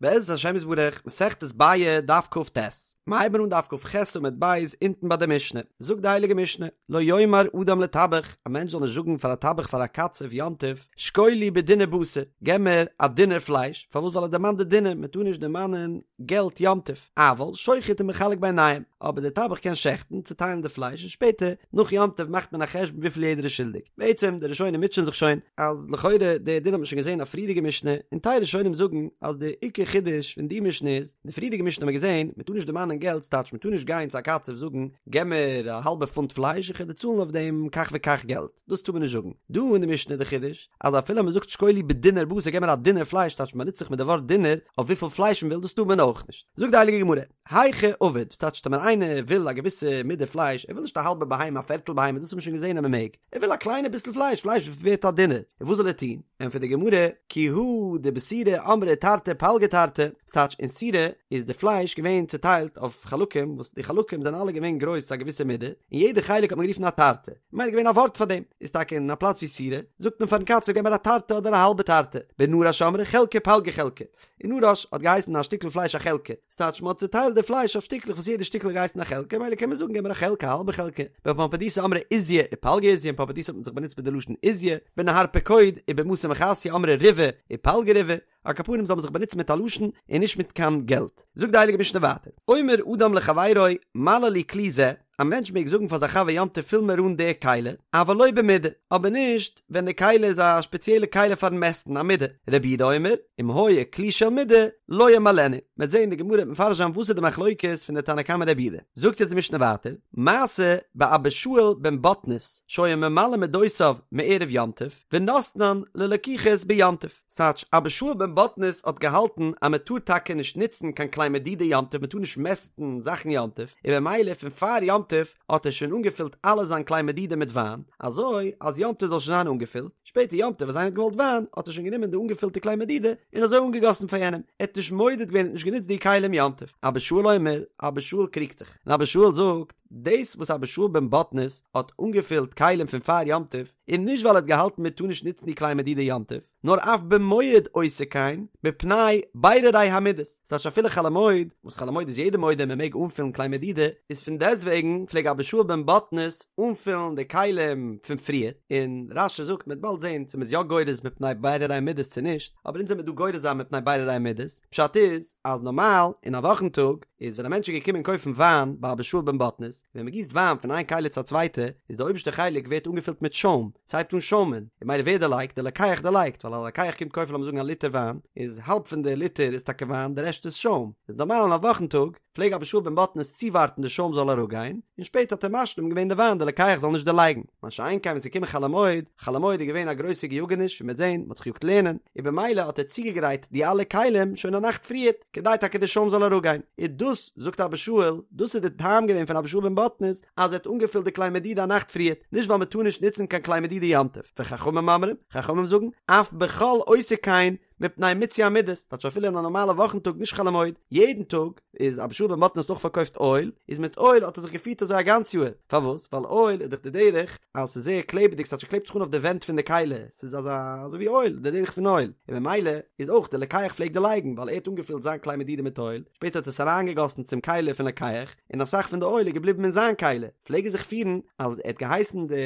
בעזרת השם יתברך, מסכת ביעא, דף כ"ט. מיר הייבן אן דף כ"ח עמוד ב' אונטן ביי די משנה. זאגט די הייליגע משנה, לא יאמר אדם לטבח, א מענטש זאל נישט זאגן פאר א טבח פאר א קצב יום טוב, שקול לי בדינר בשר, געב מיר א דינר פלייש, פארוואס ווייל ער דערמאנט די דינר, מען טאר נישט דערמאנען געלט יום טוב, אבל שוחט ומחלק ביניהם, אבער דער טבח קען שעכטן, צוטיילן די פלייש און שפעטער נאך יום טוב מאכט מען א חשבון וויפיל יעדער איז שולדיג. בעצם די ראשונים מוטשען זיך שוין, אז לכאורה די דין האט מען שוין געזען א פריערדיגע משנה, און טייל ראשונים זאגן אז די עיקר חידוש פון די משנה איז, די פריערדיגע משנה האט מען געזען, מען טאר נישט דערמאנען געלט ס'טייטש מען טאר נישט גיין צו א קצב זאגן געב מיר א האלבע פונט פלייש איך וועל דיר צאלן אויף דעם כך וכך געלט, דאס טאר מען נישט זאגן. דא אין די משנה איז די חידוש, אז אפילו מען זאגט שקול לי בדינר בשר געב מיר א דינר פלייש טייטש מען באנוצט זיך מיט די ווארט דינר אויף וויפיל פלייש מען וויל דאס טאר מען אויך נישט. זאגט די הייליגע גמרא, היכי עביד, וואס טייטש טאמער איינער וויל א געוויסע מידה פלייש, ער וויל נישט א האלבע בהמה א פערטל בהמה דאס האט מען שוין געזען אז מען מעג, ער וויל א קליינע ביסל פלייש, פלייש ווערט א דינר, און וואס זאל ער טון? ענטפערט די גמרא, כי הא דבסורא אמרי תרתי פלגי תרתי, וואס טייטש אין סורא איז די פלייש געווען צוטיילט אויף חלקים וואס די חלקים זענען אלע געווען גרויס צו א געוויסע מידה, און יעדע חלק האט מען גערופן א תרתי, ממילא געווען א ווארט פאר דעם, איז טאקע אין א פלאץ ווי סורא, זאגט מען פארן קצב געב מיר א תרתי אדער א האלבע תרתי, בנרש אמרי חלקא פלגא חלקא, אין נרש האט געהייסן א שטיקל פלייש א חלקא, ס'טייטש מ'האט צוטיילט די פלייש אויף שטיקלעך וואס יעדע שטיקל האט געהייסן א חלקה, ממילא קען מען זאגן געב מיר א חלקה א האלבע חלקה. בפומבדיתא אמרי עוזיא ופלגא עוזיא, אין פומבדיתא האט מען זיך באנוצט מיט די לשון עוזיא, בנהר פקוד ובמתא מחסיא אמרי ריבעא ופלגא ריבעא, על כל פנים זאל מען זיך באנוצן מיט א לשון און נישט מיט קיין געלט. זאגט די הייליגע משנה ווייטער, אומר אדם לחבירו מלא לי כלי זה, א מענטש מעג זאגן פאר זיין חבר יום טוב פיל מיר אן די כלי, אבל לא במידה, אבער נישט ווען די כלי איז א שפעציעלע כלי פארן מעסטן, א מידה. רבי יהודה אומר, אם היה כלי של מידה, לא ימלאנו. מ'וועט זען די גמרא וועט מפרש זיין וואס איז די מחלוקת פון די תנא קמא רבי יהודה. זאגט יעצט די משנה ווייטער, מעשה באבא שאול בן בטנית, שהיה ממלא מדותיו מערב יום טוב, ונותנן ללקוחות ביום טוב. ס'טייטש, אבא שאול בן בטנית האט געהאלטן אז מען טאר טאקע נישט נוצן קיין כלי מדידה יום טוב, מען טאר נישט מעסטן זאכן יום טוב, און במילא פון פאר יום טוב האט ער שוין אנגעפילט אלע זיין כלי מדידה מיט וויין, אזוי אז יום טוב זאל שוין זיין אנגעפילט, שפעטער יום טוב אז איינער האט געוואלט וויין האט ער שוין גענומען די אנגעפילטע כלי מדידה און אזוי אנגעגאסן פאר יענעם, ער האט נישט מודד געווען, ער האט נישט גענוצט די כלים יום טוב. אבא שאול אומר, אבא שאול קריגט זיך, און אבא שאול זאגט, דאס וואס אבא שאול בן בטנית האט אנגעפילט כלים פון פאר יום טוב, איז נישט ווייל ער האט געהאלטן מען טאר נישט נוצן די כלי מדידה יום טוב, נאר אף במועד עושה כן, מפני בירורי המידות, ס'טייטש אפילו חול המועד, וואס חול המועד איז יעדער מודה מען מעג אנפילן כלי מדידה, איז פון דעסטוועגן פלעג אבא שאול בן בטנית אנפילן די כלים פון פריער, און רש"י זאגט מ'וועט באלד זען צו מ'איז יא גורס מפני בירורי המידות צו נישט, אבער אונז וועמיר דא גורס זיין מפני בירורי המידות, פשט איז אז נארמאל אין א וואכן טאג איז ווען א מענטש איז געקומען קויפן וויין ביי אבא שאול בן בטנית, ווען מ'גיסט וויין פון איין כלי צו א צווייטע איז די אויבערשטע חלק ווערט אנגעפילט מיט שוים, ס'הייבט אן שוימען, און ממילא ווער דערלייגט? דער לוקח דערלייגט, ווייל א לוקח קומט קויפן לאמיר זאגן א ליטער וויין, איז האלב פון די ליטער איז טאקע וויין, די רעשט איז שוים. איז נארמאל אין א וואכן טאג, פלעג אבא שאול בן בטנית צואווארטן די שוים זאל אראפגיין, און שפעטער האט ער משלים געווען די וויין די לוקח זאל נישט דערלייגן. מה שאין כן ווען ס'איז געקומען חול המועד, חול המועד איז געווען א גרויסע געיאגעניש, ווי מ'וועט זען, מ'האט זיך געיאגט לערנען, און במילא האט ער צוגעגרייט די אלע כלים שוין א נאכט פריערט, כדי טאקע די שוים זאל אראפגיין. און דאס, זאגט אבא שאול, דאס איז די טעם געווען פון אבא שאול בן בטנית, אז ער האט אנגעפילט די כלי מדידה א נאכט פריערט, נישט ווייל מען טאר נישט נוצן קיין כלי מדידה יום טוב, וחכמים אומרים, חכמים זאגן, אף בחול עושה כן, מפני מיצוי המידות, טייטש אפילו אין א נארמאלע וואכן טאג נישט חול המועד, יעדן טאג, איז אבא שאול בן בטנית האט אויך פארקויפט אויל, איז מיט אויל האט ער זיך געפירט אזוי א גאנץ יאהר, פארוואס? ווייל אויל איז דאך די דרך אז ס'איז זייער קלעבעדיג ס'טייטש ס'קלעבט זיך אן אויף די ווענט פון די כלי, ס'איז אזא אזוי ווי אויל, די דרך פון אויל, און ממילא איז אויך די לוקח פלעגט דערלייגן ווייל ער האט אנגעפילט זיין כלי מדידה מיט אויל, שפעטער האט ער עס אריינגעגאסן צום כלי פון לוקח, און אסאך פון די אויל איז געבליבן אין זיין כלי, פלעג ער זיך פירן אז ער האט געהייסן די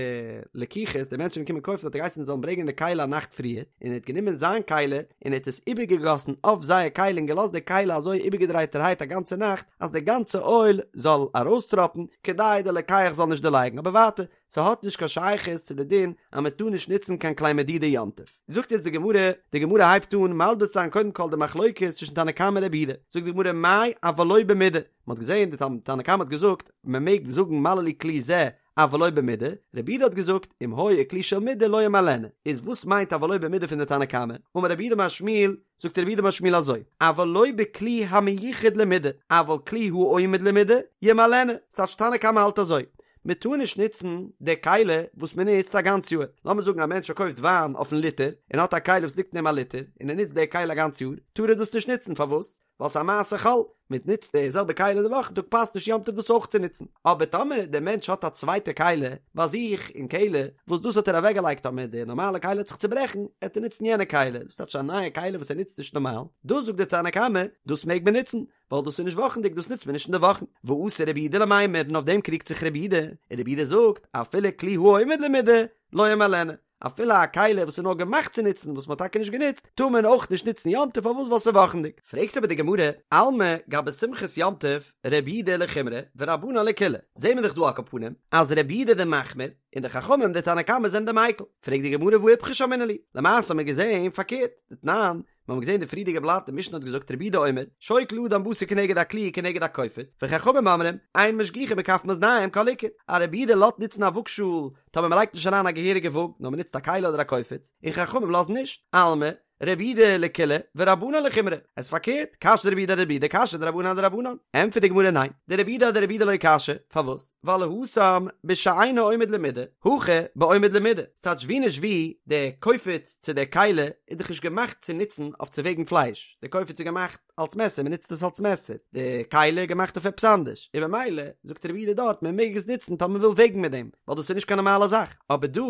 לקוחות, די מענטשן וואס קומען קויפן האט ער געהייסן זיי זאלן ברענגען די כלי א נאכט פריער, און ער האט גענומען זיין כלי און ער האט עס איבערגעגאסן אויף זייער כלי און געלאזט די כלי אזוי איבערגעדרייטערהייט א גאנצע נאכט אז די גאנצע אויל זאל ארויסטראפן כדי די לוקח זאל נישט דערלייגן, אבער ווייטער, ס'האט נישט קיין שייכות צו די דין אז מען טאר נישט נוצן קיין כלי מדידה יום טוב. זאגט יעצט די גמרא, די גמרא הייבט אן מסביר צו זיין קודם כל די מחלוקת צווישן תנא קמא און רבי יהודה, זאגט די גמרא מאי אבל לא במידה, מען האט געזען די תנא קמא האט געזאגט מען מעג זאגן מלא לי כלי זה אבל לא במידה, רבי יהודה האט געזאגט אם היה כלי של מידה לא ימלאנו, איז וואס מיינט אבל לא במידה פון די תנא קמא? אמר רב יהודה אמר שמואל, זאגט רב יהודה אמר שמואל אזוי, אבל לא בכלי המיוחד למידה, אבל כלי העומד למידה ימלאנו, ס'טייטש תנא קמא האלט אזוי, מען טאר נישט נוצן די כלי וואס מען נוצט א גאנץ יאר, לאמיר זאגן א מענטש פארקויפט וויין אויפן ליטער, און האט א כלי וואס ליגט אין אים א ליטער, און ער נוצט די כלי א גאנץ יאר, טאר ער דאס נישט נוצן, פארוואס? ווייל ס'איז א מעשה חול, מען נוצט די זעלבע כלי אין די וואכן טאג פאסט נישט יום טוב דאס אויך צו נוצן, אבער טאמער דער מענטש האט א צווייטע כלי ביי זיך אין קעלער וואס דאס האט ער אוועקגעלייגט טאמער די נארמאלע כלי וועט זיך צוברעכן עט ער נוצן יענע כלי, דאס טייטש א נייע כלי וואס ער נוצט נישט נארמאל, דאס זאגט דער תנא קמא דאס מעג מען נוצן, ווייל דאס איז נישט וואכנדיג דאס נוצט מען נישט אין די וואכן, ואתא רבי יהודה למימר און אויף דעם קריגט זיך רבי יהודה, און רבי יהודה זאגט אפילו כלי העומד למידה לא ימלאנו, אפילו א כלי וואס איז נאר געמאכט צו נוצן וואס מ'האט טאקע נישט גענוצט, טאר מען אויך נישט נוצן יום טוב פארוואס ווייל ס'איז וואכנדיג. פרעגט אבער די גמרא, אלמא גבי שמחת יום טוב רבי יהודה לחומרא ורבנן לקולא, זעהן מיר דאך דא על כל פנים אז רבי יהודה די מחמיר און די חכמים די תנא קמא זענען די מיקל, פרעגט די גמרא והא איפכא שמעינן להו, למעשה האט מען געזעהן פארקערט, דתנן, מיר האבן געזען די פריערדיגע בלאט, די משנה האט געזאגט רבי יהודה אומר, שוקל אדם בשר כנגד הכלי כנגד הקופיץ, וחכמים אומרים, אין משגיחין בכף מאזניים כל עיקר, א רבי יהודה לאזט נוצן א וואגשאהל טאמער מען לייגט נישט אריין א געהעריגע וואג, נאר מען נוצט א כלי אדער א קופיץ, און חכמים לאזן נישט, אלמא, רבי יהודה לקולא ורבנן לחומרא, עס איז פארקערט, קשיא דרבי יהודה אדרבי יהודה קשיא דרבנן אדרבנן, ענטפערט די גמרא ניין, דרבי יהודה אדרבי יהודה לא קשיא, פארוואס? ווייל התם בשאינו עומד למידה, הכא בעומד למידה, ס'טייטש ווי נישט ווי, די קופיץ צו די כלי איז דאך נישט געמאכט צו נוצן אויף צו וועגן פלייש, די קופיץ איז געמאכט אלס מעסער, מ'נוצט עס אלס מעסער, די כלי איז געמאכט אויף עפעס אנדערש, און במילא זאגט רבי יהודה דארט מען מעג עס נוצן טאמער מ'וויל וועגן מיט דעם, ווייל דאס איז נישט קיין נארמאלע זאך, אבער דא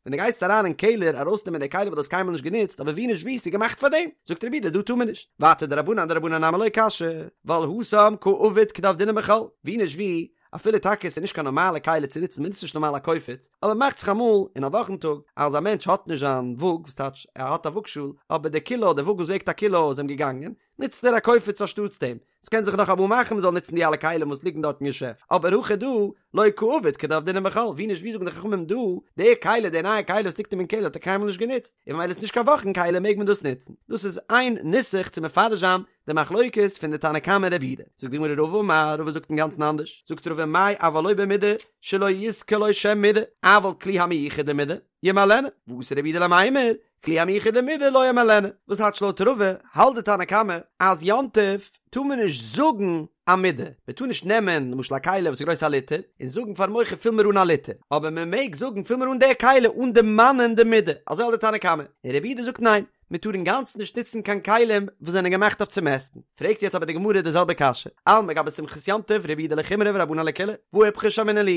ווען דו גייסט אריין אין קעלער ארויסנעמען די כלי וואס דו האסט קיינמאל נישט גענוצט אבער ווי נישט ווי ס'איז געמאכט פאר דעם, זאגט רבי יהודה דא טאר מען נישט, ווייטער דרבנן אדרבנן נמי לא קשיא, ווייל התם קא עביד כדעבדינן בחול, ווי נישט ווי, אפילו טאקע ס'איז נישט קיין נארמאלע כלי צו נוצן מ'נוצט נישט נארמאל א קופיץ, אבער מאכט זיך אמאל אין א וואכן טאג אז א מענטש האט נישט זיין וואג, וואס טייטש ער האט א וואגשאל אבער די קילא די וואג וואס וועגט א קילא איז אים געגאנגען, נוצט ער א קופיץ אנשטאטס דעם, ס'קען זיך נאך אמאל מאכן מ'זאל נוצן די אלע כלים וואס ליגן דארט אין געשעפט, אבער הכא דא, לא קא עביד כדעבדינן בחול, ווי נישט ווי זאגן די חכמים דא, די כלי, די נייע כלי וואס ליגט אים אין קעלער האט ער קיינמאל נישט גענוצט, און ממילא איז נישט קיין וואכן כלי מעג מען דאס נוצן. דאס איז איין נוסח צו מפרש זיין די מחלוקת פון די תנא קמא און רבי יהודה. זאגט די גמרא רבא אמר, רבא זאגט אינגאנצן אנדערש, זאגט רבא מאי אבל לא במידה שלא יזכור לו שם מידה, אבל כלי המיוחד למידה, ימלאנו, ואתא רבי יהודה למימר, כלי המיוחד למידה לא ימלאנו, וואס טייטש לויט רבא האלט די תנא קמא אז יום טוב טאר מען נישט זאגן א מידה, מען טאר נישט נעמען למשל א כלי וואס איז גרויס א ליטער און זאגן פארן מוכר פיל מיר אן א ליטער, אבער מען מעג זאגן פיל מיר אן די כלי אן דערמאנען די מידה, אזוי האלט די תנא קמא, און רבי יהודה זאגט ניין, מען טאר אינגאנצן נישט נוצן קיין כלים וואס זענען געמאכט אויף צו מעסטן. פרעגט יעצט אבער די גמרא די זעלבע קשיא, אלמא גבי שמחת יום טוב רבי יהודה לחומרא ורבנן לקולא, והא איפכא שמעינן להו,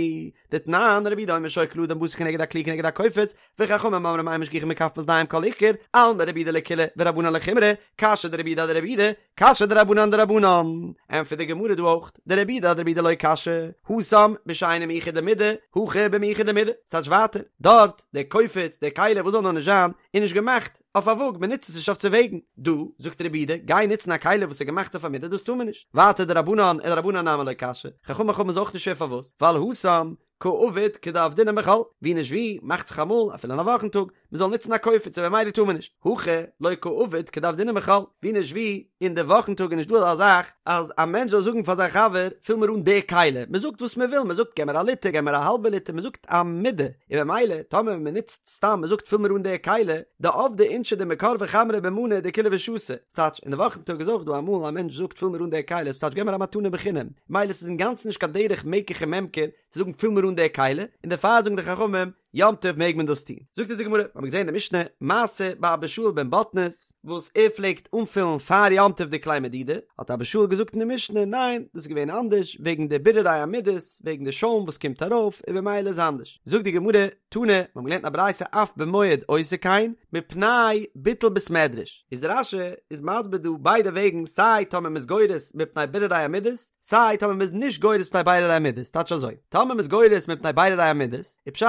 דתנן רבי יהודה אומר שוקל אדם בשר כנגד הכלי כנגד הקופיץ, וחכמים אומרים אין משגיחין בכף מאזניים כל עיקר, אלמא רבי יהודה לקולא ורבנן לחומרא, קשיא דרבי יהודה אדרבי יהודה, קשיא דרבנן אדרבנן. ענטפערט די גמרא דא אויך, דרבי יהודה אדרבי יהודה לא קשיא, התם בשאינו מיוחד למידה, הכא במיוחד למידה, ס'טייטש ווייטער, דארט, דער קופיץ, דער כלי, וואס זאל נאר נישט זיין, איז נישט געמאכט אויף א וואג, מען נוצט עס נישט אויף צו וועגן. דא, זאגט רבי יהודה, גיי נוצן א כלי וואס איז געמאכט אויף א מידה, דאס טאר מען נישט. ווייטער דרבנן אדרבנן נמי לא קשיא, חכמים חכמים איז אויך נישט שווער פארוואס, ווייל התם קא עביד כדעבדינן בחול, ווי נישט ווי, מאכט זיך אמאל, אפילו אין א וואכן טאג, מען זאל נוצן א קופיץ און במילא טאר מען נישט, הכא לא קא עביד כדעבדינן בחול, ווי נישט ווי, אין די וואכן טאג איז נישט דא אזא זאך אז א מענטש זאל זאגן פאר זיין חבר פיל מיר אן די כלי, מען זאגט וואס מען וויל, מען זאגט געב מיר א ליטער, געב מיר א האלבע ליטער, מען זאגט א מידה, און במילא טאמער מען נוצט סתם מען זאגט פיל מיר אן די כלי, דעבדי אינשי דמקרבי חמרא במנא דכולהו ושתו, ס'טייטש אין די וואכן טאג איז אויך דא אמאל א מענטש זאגט פיל מיר אן די כלי, ס'טייטש געב מיר א מתנה בחינם, מילא ס'איז אינגאנצן נישט קיין דרך מקח וממכר צו זאגן פיל מיר אן די כלי, און דערפאר זאגן די חכמים יום טוב מעג מען דאס טון. זאגט אונז די גמרא, מיר האבן געזען אין די משנה, מעשה באבא שאול בן בטנית, וואס ער פלעגט אנפילן פאר יום טוב די כלי מדידה, האט אבא שאול געזאגט אין די משנה, ניין, דאס איז געווען אנדערש, וועגן די בירורי המידות, וועגן די שוים וואס קומט ארויף, און במילא איז אנדערש. זאגט די גמרא, תנא, מיר האבן געלערנט אין א ברייתא אף במועד עושה כן, מפני ביטול בית מדרש. איז רש"י איז מסביר דא ביידע וועגן, סיי טאמער מ'איז גורס מפני בירורי המידות, סיי טאמער מ'איז נישט גורס מפני בירורי המידות, טייטש אזוי, טאמער מ'איז גורס מפני בירורי המידות, איז פשט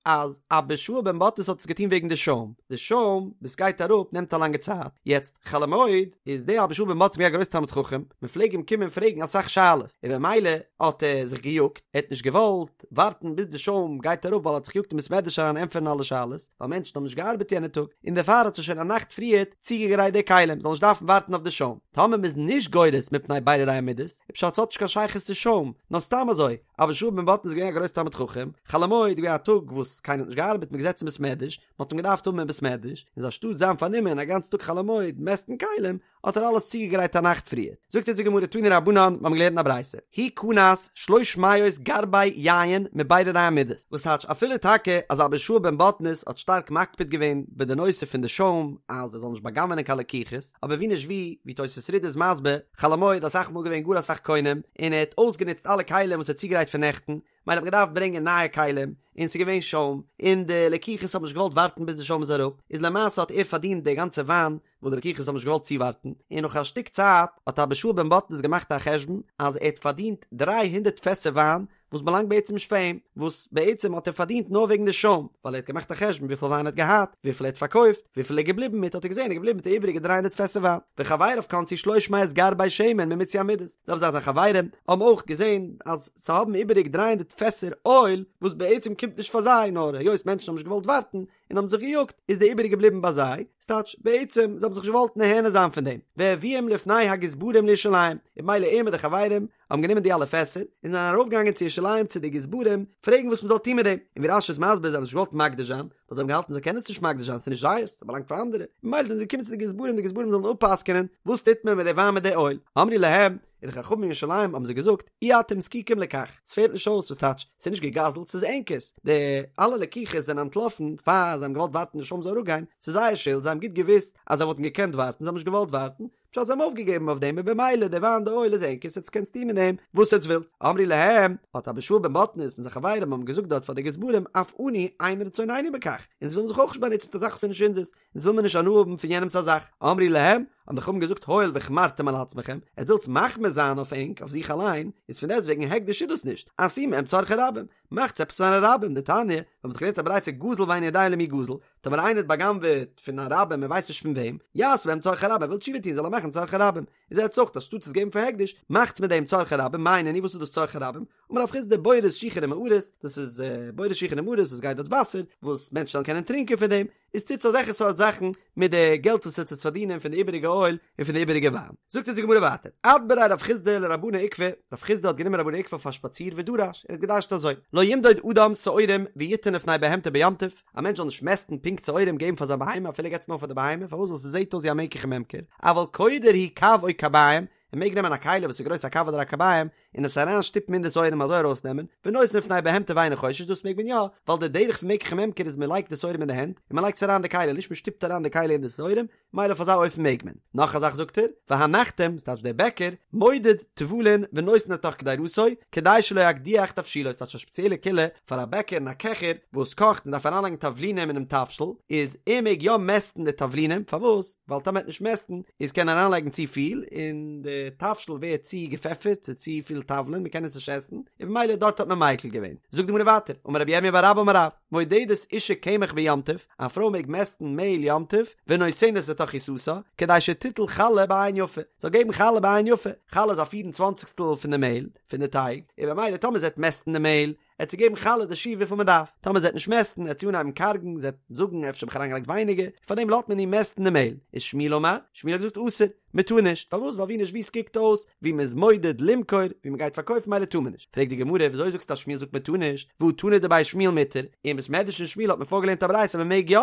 אז אבא שאול בן בטנית האט עס געטון וועגן די שוים, די שוים וואס גייט אראפ נעמט א לאנגע צייט, יעצט חול המועד איז דער אבא שאול בן בטנית געווען א גרויס תלמיד חכם, מ'פלעג אים קומען פרעגן אסאך שאלות, און במילא האט ער זיך געיאגט, ער האט נישט געוואלט ווארטן ביז די שוים גייט אראפ ווייל ער האט זיך געיאגט אין בית מדרש אריין ענטפערן אלע שאלות, ווייל מענטשן האבן נישט געארבעט יענע טאג, און דערפאר האט ער שוין א נאכט פריערט צוגעגרייט די כלים, זאל נישט דארפן ווארטן אויף די שוים. טאמער מ'איז נישט גורס מפני בירורי המידות, איז פשט ס'האט נישט קיין שייכות צו שוים, נאר סתם אזוי, אבא שאול בן בטנית איז געווען א גרויס תלמיד חכם, חול המועד איז געווען א טאג וואס קיינער האט נישט געארבעט, מ'איז געזעצן אין בית מדרש, מ'האט אים געדארפט האבן אין בית מדרש, איז אנשטאט זיין פארנומען א גאנצן טאג חול המועד מעסטן כלים, האט ער אלעס צוגעגרייט א נאכט פריער. זאגט אונז די גמרא תנו רבנן, מיר האבן געלערנט אין א ברייתא, הוא כנס שלש מאות גרבי יין מביררי המידות, וואס טייטש אפילו טאקע אז אבא שאול בן בטנית האט שטארק מקפיד געווען ביי די נושא פון די שוים אז ער זאל נישט בא'גנב'ענען קיין לקוחות, אבער ווי נישט ווי, ווי תוס' רי"ד איז מסביר, חול המועד אסאך מאל געווען גאר אסאך קונים, און ער האט אויסגענוצט אלע כלים וואס ער האט צוגעגרייט פון נעכטן, מילא האט מען געדארפט ברענגען נייע כלים, און ס'איז געווען שוים, און די לקוחות האבן נישט געוואלט ווארטן ביז די שוים איז אראפ, איז למעשה האט ער פארדינט די גאנצע וויין וואס די לקוחות האבן נישט געוואלט צואווארטן, און נאך א שטיק צייט האט אבא שאול בן בטנית געמאכט א חשבון אז ער האט פארדינט דריי הונדערט פעסער וויין וואס באלאנגט בעצם נישט פאר אים, וואס בעצם האט ער פארדינט נאר וועגן די שוים, ווייל ער האט געמאכט א חשבון וויפיל וויין ער האט געהאט, וויפיל ער האט פארקויפט, וויפיל ער איז געבליבן מיט, האט ער געזען ער איז געבליבן מיט די איבעריגע דריי הונדערט פעסער וויין. וחבריו כנסו שלש מאות גרבי שמן ממיצוי המידות, זעלבע זאך זיין חברים האבן אויך געזען אז זיי האבן איבעריג דריי הונדערט פעסער אויל וואס בעצם קומט נישט פאר זיי נאר היות מענטשן האבן נישט געוואלט ווארטן און האבן זיך געיאגט איז די איבעריגע געבליבן ביי זיי, ס'טייטש בעצם זיי האבן זיך נישט געוואלט נהנה זיין פון דעם, והביאום לפני הגזברים לירושלים, און במילא ער מיט די חברים האבן גענומען די אלע פעסער און זענען ארויפגעגאנגען צו ירושלים צו די גזברים פרעגן וואס מ'זאל טון מיט דעם, און ווי רש"י איז מסביר זיי האבן נישט געוואלט מקדיש זיין ווייל זיי האבן געהאלטן זיי קענען עס נישט מקדיש זיין ס'איז נישט זייערס ס'באלאנגט פאר אנדערע, ממילא זענען זיי געקומען צו די גזברים די גזברים זאלן אפ'פסק'ענען וואס טוט מען מיט די וויין מיט די אויל, אמרו להם, און די חכמים אין ירושלים האבן זיי געזאגט, אי אתם זקוקים לכך, ס'פעלט נישט אויס, וואס טייטש, ס'איז נישט געגזלט, ס'איז ענקערס, די אלע לקוחות זענען אנטלאפן פאר זיי האבן געוואלט ווארטן די שוים זאל אראפגיין, ס'איז זייער שולד, זיי האבן גוט געוואוסט אז זיי וואלטן געקענט ווארטן, זיי האבן נישט געוואלט ווארטן, פשט זיי האבן אויפגעגעבן אויף דעם און במילא די וויין די אויל איז ענקערס עטס קענטס טון מיט דעם וואס עטס ווילטס, אמרו להם, האט אבא שאול בן בטנית מיט זיין חברים האבן געזאגט דארט פאר די גזברים, אף אנו אין רצוננו בכך, אונז ווילן זיך אויך נישט באנוצן מיט א זאך וואס איז נישט אונזערס, אונז וויל מיר נישט הנאה האבן פון יענעמס א זאך. אמרו להם, האבן די חכמים געזאגט הואיל והחמרתם על עצמכם, עטס ווילטס מחמיר זיין אויף ענק, אויף זיך אליין, איז פון דעסטוועגן הקדש איז דאס נישט, עשו מהם צרכי רבים, מאכטס עפעס פארן רבים, דתניא, מיר האבן דאך געלערנט א ברייתא גזל ואינו יודע למי גזל, טאמער איינער האט בא'גנב'עט פון א רבים ער ווייסט נישט פון וועם, יעשה בהם צרכי רבים, ער וויל תשובה טון זאל ער מאכן צרכי רבים, איז עטס אויך אנשטאט עס געבן פאר הקדש, מאכטס מיט דעם צרכי רבים, מאי נינהו וואס איז דאס צרכי רבים? אמר רב חסדא בורות שיחין ומערות, דאס איז בורות שיחין ומערות וואס גייט דארט וואסער, וואס מענטשן זאלן קענען טרינקען פון דעם, איז טוטס אזעלכע סארט זאכן מיט די געלט וואס עטס וועט פארדינען פון די איבעריגע אויל און פון די איבעריגע וויין. זאגט אונז די גמרא ווייטער, אדבריה רב חסדא לרבנא עוקבא, רב חסדא האט גענומען רבנא עוקבא אויף א שפאציר ודרש, ער האט געדרש'ט אזוי, לא ימדוד אדם שעורים ויתן לפני בהמתו ביום טוב, א מענטש זאל נישט מעסטן פונקט שעורים געבן פאר זיין בהמה אפילו ער געבט עס נאר פאר די בהמה, פארוואס ווייל ס'זעט אויס ווי א מקח וממכר, אבל קודר הוא קב או קביים, ער מעג נעמען א כלי וואס איז גרויס א קב אדער א קביים און עס אריין שטופן אין די שעורים אזוי ארויס נעמען, ונותן לפני בהמתו ואינו חושש דאס מעג מען יא, ווייל די דרך פון מקח וממכר איז מען לייגט די שעורים אין די הענט און מען לייגט עס אריין אין די כלי נישט מען שטופט אריין די כלי אין די שעורים, מילא אויף אזא אופן מעג מען. נאך א זאך זאגט ער, והנחתום, ס'טייטש דער בעקער, מודד תבלין ונותן לתוך קדירתו, כדי שלא יקדיח תבשילו, ס'טייטש א שפעציעלע קולא פאר א בעקער און א קעכער וואס קאכט און דארף אריינלייגן תבלינים אינעם תבשיל, איז ער מעג יא מעסטן די תבלינים, פארוואס? ווייל טאמער ער וועט נישט מעסטן איז קען ער אריינלייגן צו פיל און די תבשיל ווערט צו געפעפערט ס'איז צו פיל תבלין מ'קען עס נישט עסן און במילא דארט האט מען מיקל געווען. זאגט די גמרא ווייטער, אמר רבי ירמיה בר אבא אמר רב, מודדת אשה קמח ביום טוב, א פרוי מעג מעסטן מעהל יום טוב, ונותנת לתוך עיסתה, כדי שתיטול חלה בעין יפה, זאל געבן חלה בעין יפה, חלה איז א פיר און צוואנציגסטל פון די מעהל, פון די טייג, און במילא טאמער זי וועט מעסטן די מעהל, עט זי געבן חלה די שיעור וויפיל מען דארף, טאמער זי וועט נישט מעסטן עט זי אנהייבן קארגן, זי וועט זאגן אפשר האב איך אריינגעלייגט ווייניגער, פארדעם לאזט מען איר מעסטן די מעהל, איז שמואל אמר, שמואל האט געזאגט אסור, מען טאר נישט, פארוואס ווייל ווי נישט ווי ס'קוקט אויס ווי מען איז מודד למכור, ווי מען גייט פארקויפן מילא טאר מען נישט, פרעגט די גמרא וויאזוי זאגסטו אז שמואל זאגט מען טאר נישט, והא תנא דבי שמואל מותר, אין בית מדרש פון שמואל האט מען פארגעלערנט א ברייתא אז מען מעג יא,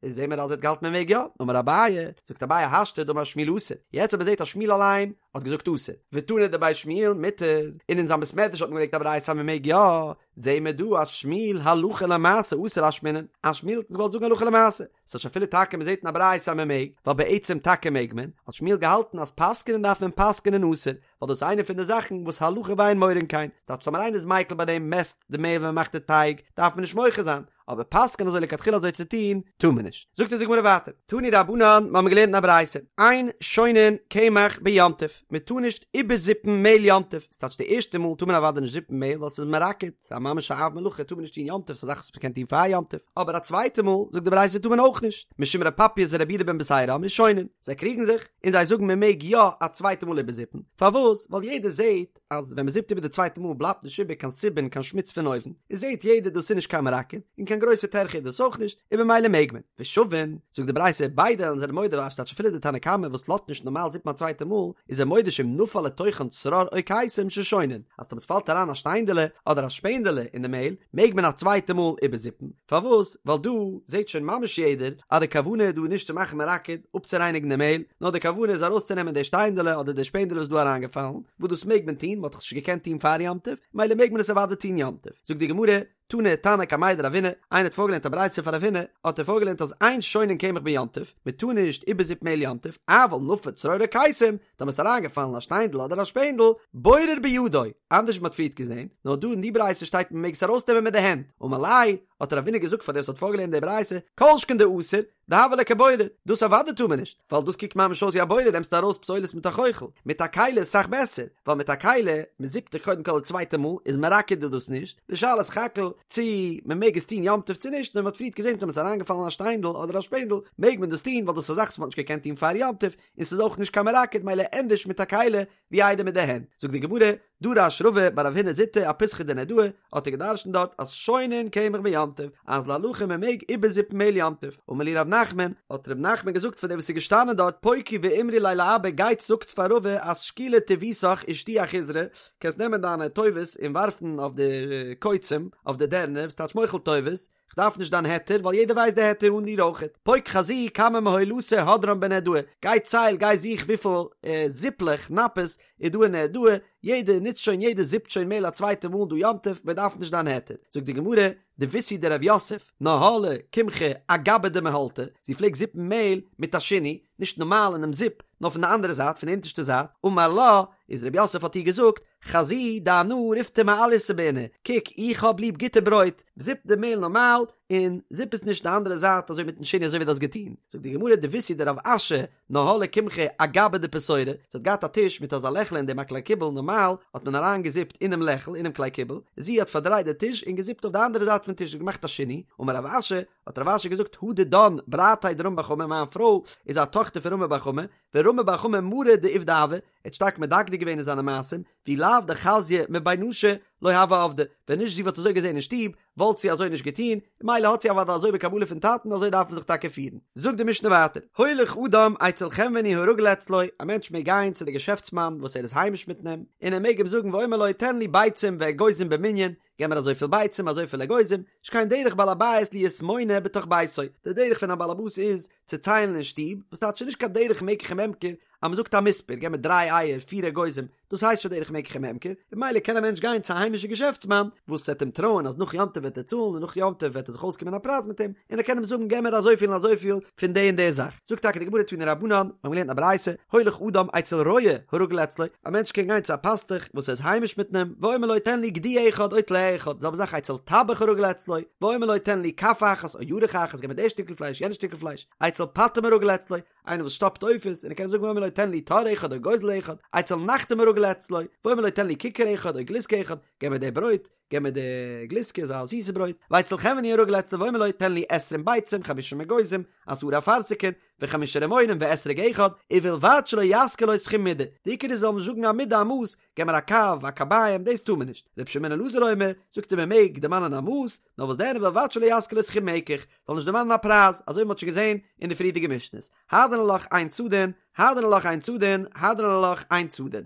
איז זעהן מיר אז ער האט געהאלטן מען מעג יא, אמר אביי, זאגט אביי השתא דאמר שמואל אסור, יעצט אז מען זעהט אז שמואל אליין האט געזאגט אסור, ותנא דבי שמואל מותר, און אין זיין בית מדרש האט מען געברענגט א ברייתא אז מען מעג יא, זעהן מיר דא אז שמואל הלכה למעשה אתא לאשמועינן, אז שמואל האט אונז געוואלט זאגן הלכה למעשה, ס'טייטש אפילו טאקע מען זעהט אין א ברייתא אז מען מעג, ווייל בעצם טאקע מעג מען, האט שמואל געהאלטן אז פסק'נען דארף מען פסק'נען אסור, ווייל דאס איז איינע פון די זאכן וואס הלכה ואין מורין כן, ס'טייטש טאמער איינער איז מיקל ביי דעם מעסט די מעהל ווען מען מאכט די טייג, דארף מען נישט מוחה זיין, אבער פסק'ען אזוי לכתחילה אזוי צו טון, טאר מען נישט. זאגט אונז די גמרא ווייטער, תנו רבנן, מיר האבן געלערנט אין א ברייתא, אין שונין קמח ביום טוב, מען טאר נישט איבערזיפן מעהל יום טוב, ס'טייטש די ערשטע מאל טאר מען אוודאי נישט זיפן מעהל ווייל ס'איז מרקד, ס'איז א ממש א אב מלאכה טאר מען נישט טון יום טוב, ס'איז א זאך וואס מ'קען טון פאר יום טוב, אבער א צווייטע מאל, זאגט די ברייתא טאר מען אויך נישט, משום ר' פפייס ורבי יהודה בן בתירא אמרו שונין, זיי קריגן זיך, און זיי זאגן מען מעג יא א צווייטע מאל איבערזיפן, פארוואס? ווייל יעדער זעהט. אז ווען מ'זיפט איבער די צווייטע מאל בלייבט נישט איבער קיין סובין קיין שמוץ פון אויבן, איז זעט יעדער דאס איז נישט קיין מרקד, און קיין גרויסע טרחה איז דאס אויך נישט, און במילא מעג מען. ושווין, זאגט די ברייתא, ביידע זענען מודה אז ס'טייטש אפילו די תנא קמא וואס לאזט נישט נארמאל זיפן א צווייטע מאל, איז ער מודה שאם נפל לתוכן צרור או קיסם ששונין, אז טאמער ס'פאלט אריין א שטיינדעלע אדער א שפענדעלע אין די מעהל, מעג מען א צווייטע מאל איבערזיפן, פארוואס? ווייל דא זעט שוין ממש יעדער אז די כוונה איז דא נישט צו מאכן מרקד, אפצורייניגן די מעהל, נאר די כוונה איז ארויסצונעמען די שטיינדעלע אדער די שפענדעלע וואס איז דא אריינגעפאלן, וואס דאס מעג מען טון, מ'האט דאך עס נישט געקענט טון פאר יום טוב, מילא מעג מען עס אוודאי טון יום טוב. זאגט די גמרא, תני תנא קמיה דרבינא, איינער האט פארגעלערנט א ברייתא פאר רב הונא, האט ער פארגעלערנט אז אין שונין קמח ביום טוב, מען טאר נישט איבערזיפן מעהל יום טוב, אבל נפל צרור או קיסם, טאמער ס'איז אריינגעפאלן א שטיינדל אדער א שפענדל, בורר בידו, אנדערש ווי מ'האט פריערט געזען, נאר דא אין די ברייתא שטייט מען מעג עס ארויסנעמען מיט די הענט, אמר ליה, האט רבינא געזאגט פאר דער וואס האט פארגעלערנט די ברייתא, כל שכן דאסור, דהוה ליה כבורר, דאס אוודאי טאר מען נישט, ווייל דאס קוקט ממש אויס ווי א בורר נעמסטו ארויס פסולת מיט א חוחל, מיט א כלי איז סאך בעסער, ווייל מיט א כלי, מען זיפט דאך קודם כל די צווייטע מאל, איז מרקד איז דאס נישט, די שאלה איז סך הכל צו מען מעג עס טון יום טוב צו נישט, נאר מען האט פריערט געזען טאמער ס'איז אריינגעפאלן א שטיינדל אדער א שפענדל, מעג מען דאס טון ווייל דאס איז א זאך וואס מען האט נישט געקענט טון פאר יום טוב, און ס'איז אויך נישט קיין מרקד מילא ענדערש מיט א כלי ווי איידער מיט די הענט. זאגט די גמרא, דרש רבא בר רב הונא זוטא אפיתחא דנהרדעא, האט ער געדרשנט דארט אז שונין קמח ביום טוב, אז להלכה מען מעג איבערזיפן מעהל יום טוב. אמר להו רב נחמן, האט רב נחמן געזאגט פאר די וואס איז געשטאנען דארט פוקו ואמרו ליה לאבא גייטס זאגטס פאר רבא אז שקילי טיבותך ושדיי אחיזרי, קענסט נעמען דיינע טובות און ווארפן אויף די קוצים, אויף די דערנער, וואס טייטש מוחל טובות, כ'דארף נישט דיין היתר ווייל יעדער ווייסט די היתר אן דיר אויכעט. פוק חזי כמה מהולתא הדרן בנהרדעא, גיי צייל גיי זוך וויפיל זיפלעך, נפות, איז דא אין נהרדעא, יעדער נוצט שוין יעדער זיפט שוין מעהל א צווייטע מאל דא יום טוב, מען דארף נישט דיין היתר. זאגט די גמרא, דביתהו דרב יוסף, נהלה קמחא אגבא דמהולתא, זי פלעגט זיפן מעהל מיט א שינוי, נישט נארמאל אינעם זיפ, נאר פון די אנדערע זייט, פון די אונטערשטע זייט, אמר לה, איז רב יוסף האט איר געזאגט, חזי דאנא ריפתא מעלייתא בעינא, קוק איך האב ליב גוטע ברויט, זיפ די מעהל נארמאל, און זיפ עס נישט די אנדערע זייט אזוי מיטן שינוי אזוי ווי דו האסט געטון. זאגט די גמרא דביתהו דרב אשי נהלה קמחא אגבא דפתורא, זי האט געהאט א טיש מיט אזא לעכל אין דעם א כלי קיבול נארמאל האט מען אריין געזיפט אינעם לעכל אינעם כלי קיבול, זי האט פארדרייט די טיש און געזיפט אויף די אנדערע זייט פון טיש און געמאכט א שינוי, אמר רב אשי, האט רב אשי געזאגט הא דידן ברתיה דרמי בר חמא מיין פרוי איז א טאכטער פון רמי בר חמא, ורמי בר חמא מרא דעובדא הוה, ער האט שטארק מדקדק געווען אין זיינע מעשים, ואי לאו דחזיא מבי נשא לא הוה עבדא, ווען נישט זי וואלט אזוי געזען אין שטוב, וואלט זי אזוי נישט געטון, מילא האט זי אוודאי אזוי בקבלה פון טאטן אזוי דארף מען זיך טאקע פירן. זאגט די משנה ווייטער, הולך אדם אצל חנווני הרגיל אצלו, א מענטש מעג גיין צו די געשעפטסמאן וואס ער איז היימיש מיט אים, און ער מעג אים זאגן ואומר לו תן לי ביצים ואגוזים במנין, געב מיר אזויפיל ביצים אזויפיל אגוזים, שכן דרך בעל הבית להיות מונה בתוך ביתו, די דרך פון א בעל הבית איז צו ציילן אין שטוב, וואס טייטש ס'איז נישט קיין דרך מקח וממכר אז מ'זאגט א מספר, געב מיר דריי אייער, פיר אגוזים, דאס הייסט שוין דרך מקח וממכר, און ממילא קען א מענטש גיין צו א היימישע געשעפטסמאן וואס וועט אים טרויען אז נאך יום טוב וועט ער צאלן און נאך יום טוב וועט ער זיך אויסקומען א פרייז מיט אים, און ער קען אים זאגן געב מיר אזויפיל און אזויפיל פון די און די זאך. זאגט טאקע די גמרא תנו רבנן, מיר האבן געלערנט א ברייתא, הולך אדם אצל רועה הרגיל אצלו, א מענטש קען גיין צו א פאסטוך וואס איז היימיש מיט אים, ואומר לו תן לי גדי אחד או טלה אחד, זעלבע זאך אצל טבח הרגיל אצלו, ואומר לו תן לי כף אחת או ירך אחת, געב מיר די שטיקל פלייש יענע שטיקל פלייש, אצל פטם הרגיל אצלו, איינער וואס שטאפט עופות, און ער קען זאגן ואומר לו תן לי תור אחד או גוזל אחד, אצל נחתום הרגיל אצלו, ואומר לו תן לי ככר אחד או גלוסקא אחד, געב מיר די ברויט, געב מיר די גלוסקא אזא זיסע ברויט, ואצל חנווני הרגיל אצלו ואומר לו תן לי עשרים ביצים חמשים אגוזים, עשרה אפרסקין, וחמישה רימונים ואתרוג אחד, ובלבד שלא יזכיר לו סכום מידה, די עיקר איז זאל מען נישט זאגן א מידה א מאס, געב מיר א קב, א קביים, דאס טאר מען נישט. ר' שמעון אלעזר אומר, זאגט ער מען מעג דערמאנען א מאס, נאר וואס דען ובלבד שלא יזכיר לו סכום מקח, זאל נישט דערמאנען א פרייז, אזוי ווי מען האט שוין געזען אין די פריערדיגע משנה'ס. הדרן עלך אין צדין, הדרן עלך אין צדין, הדרן עלך אין צדין.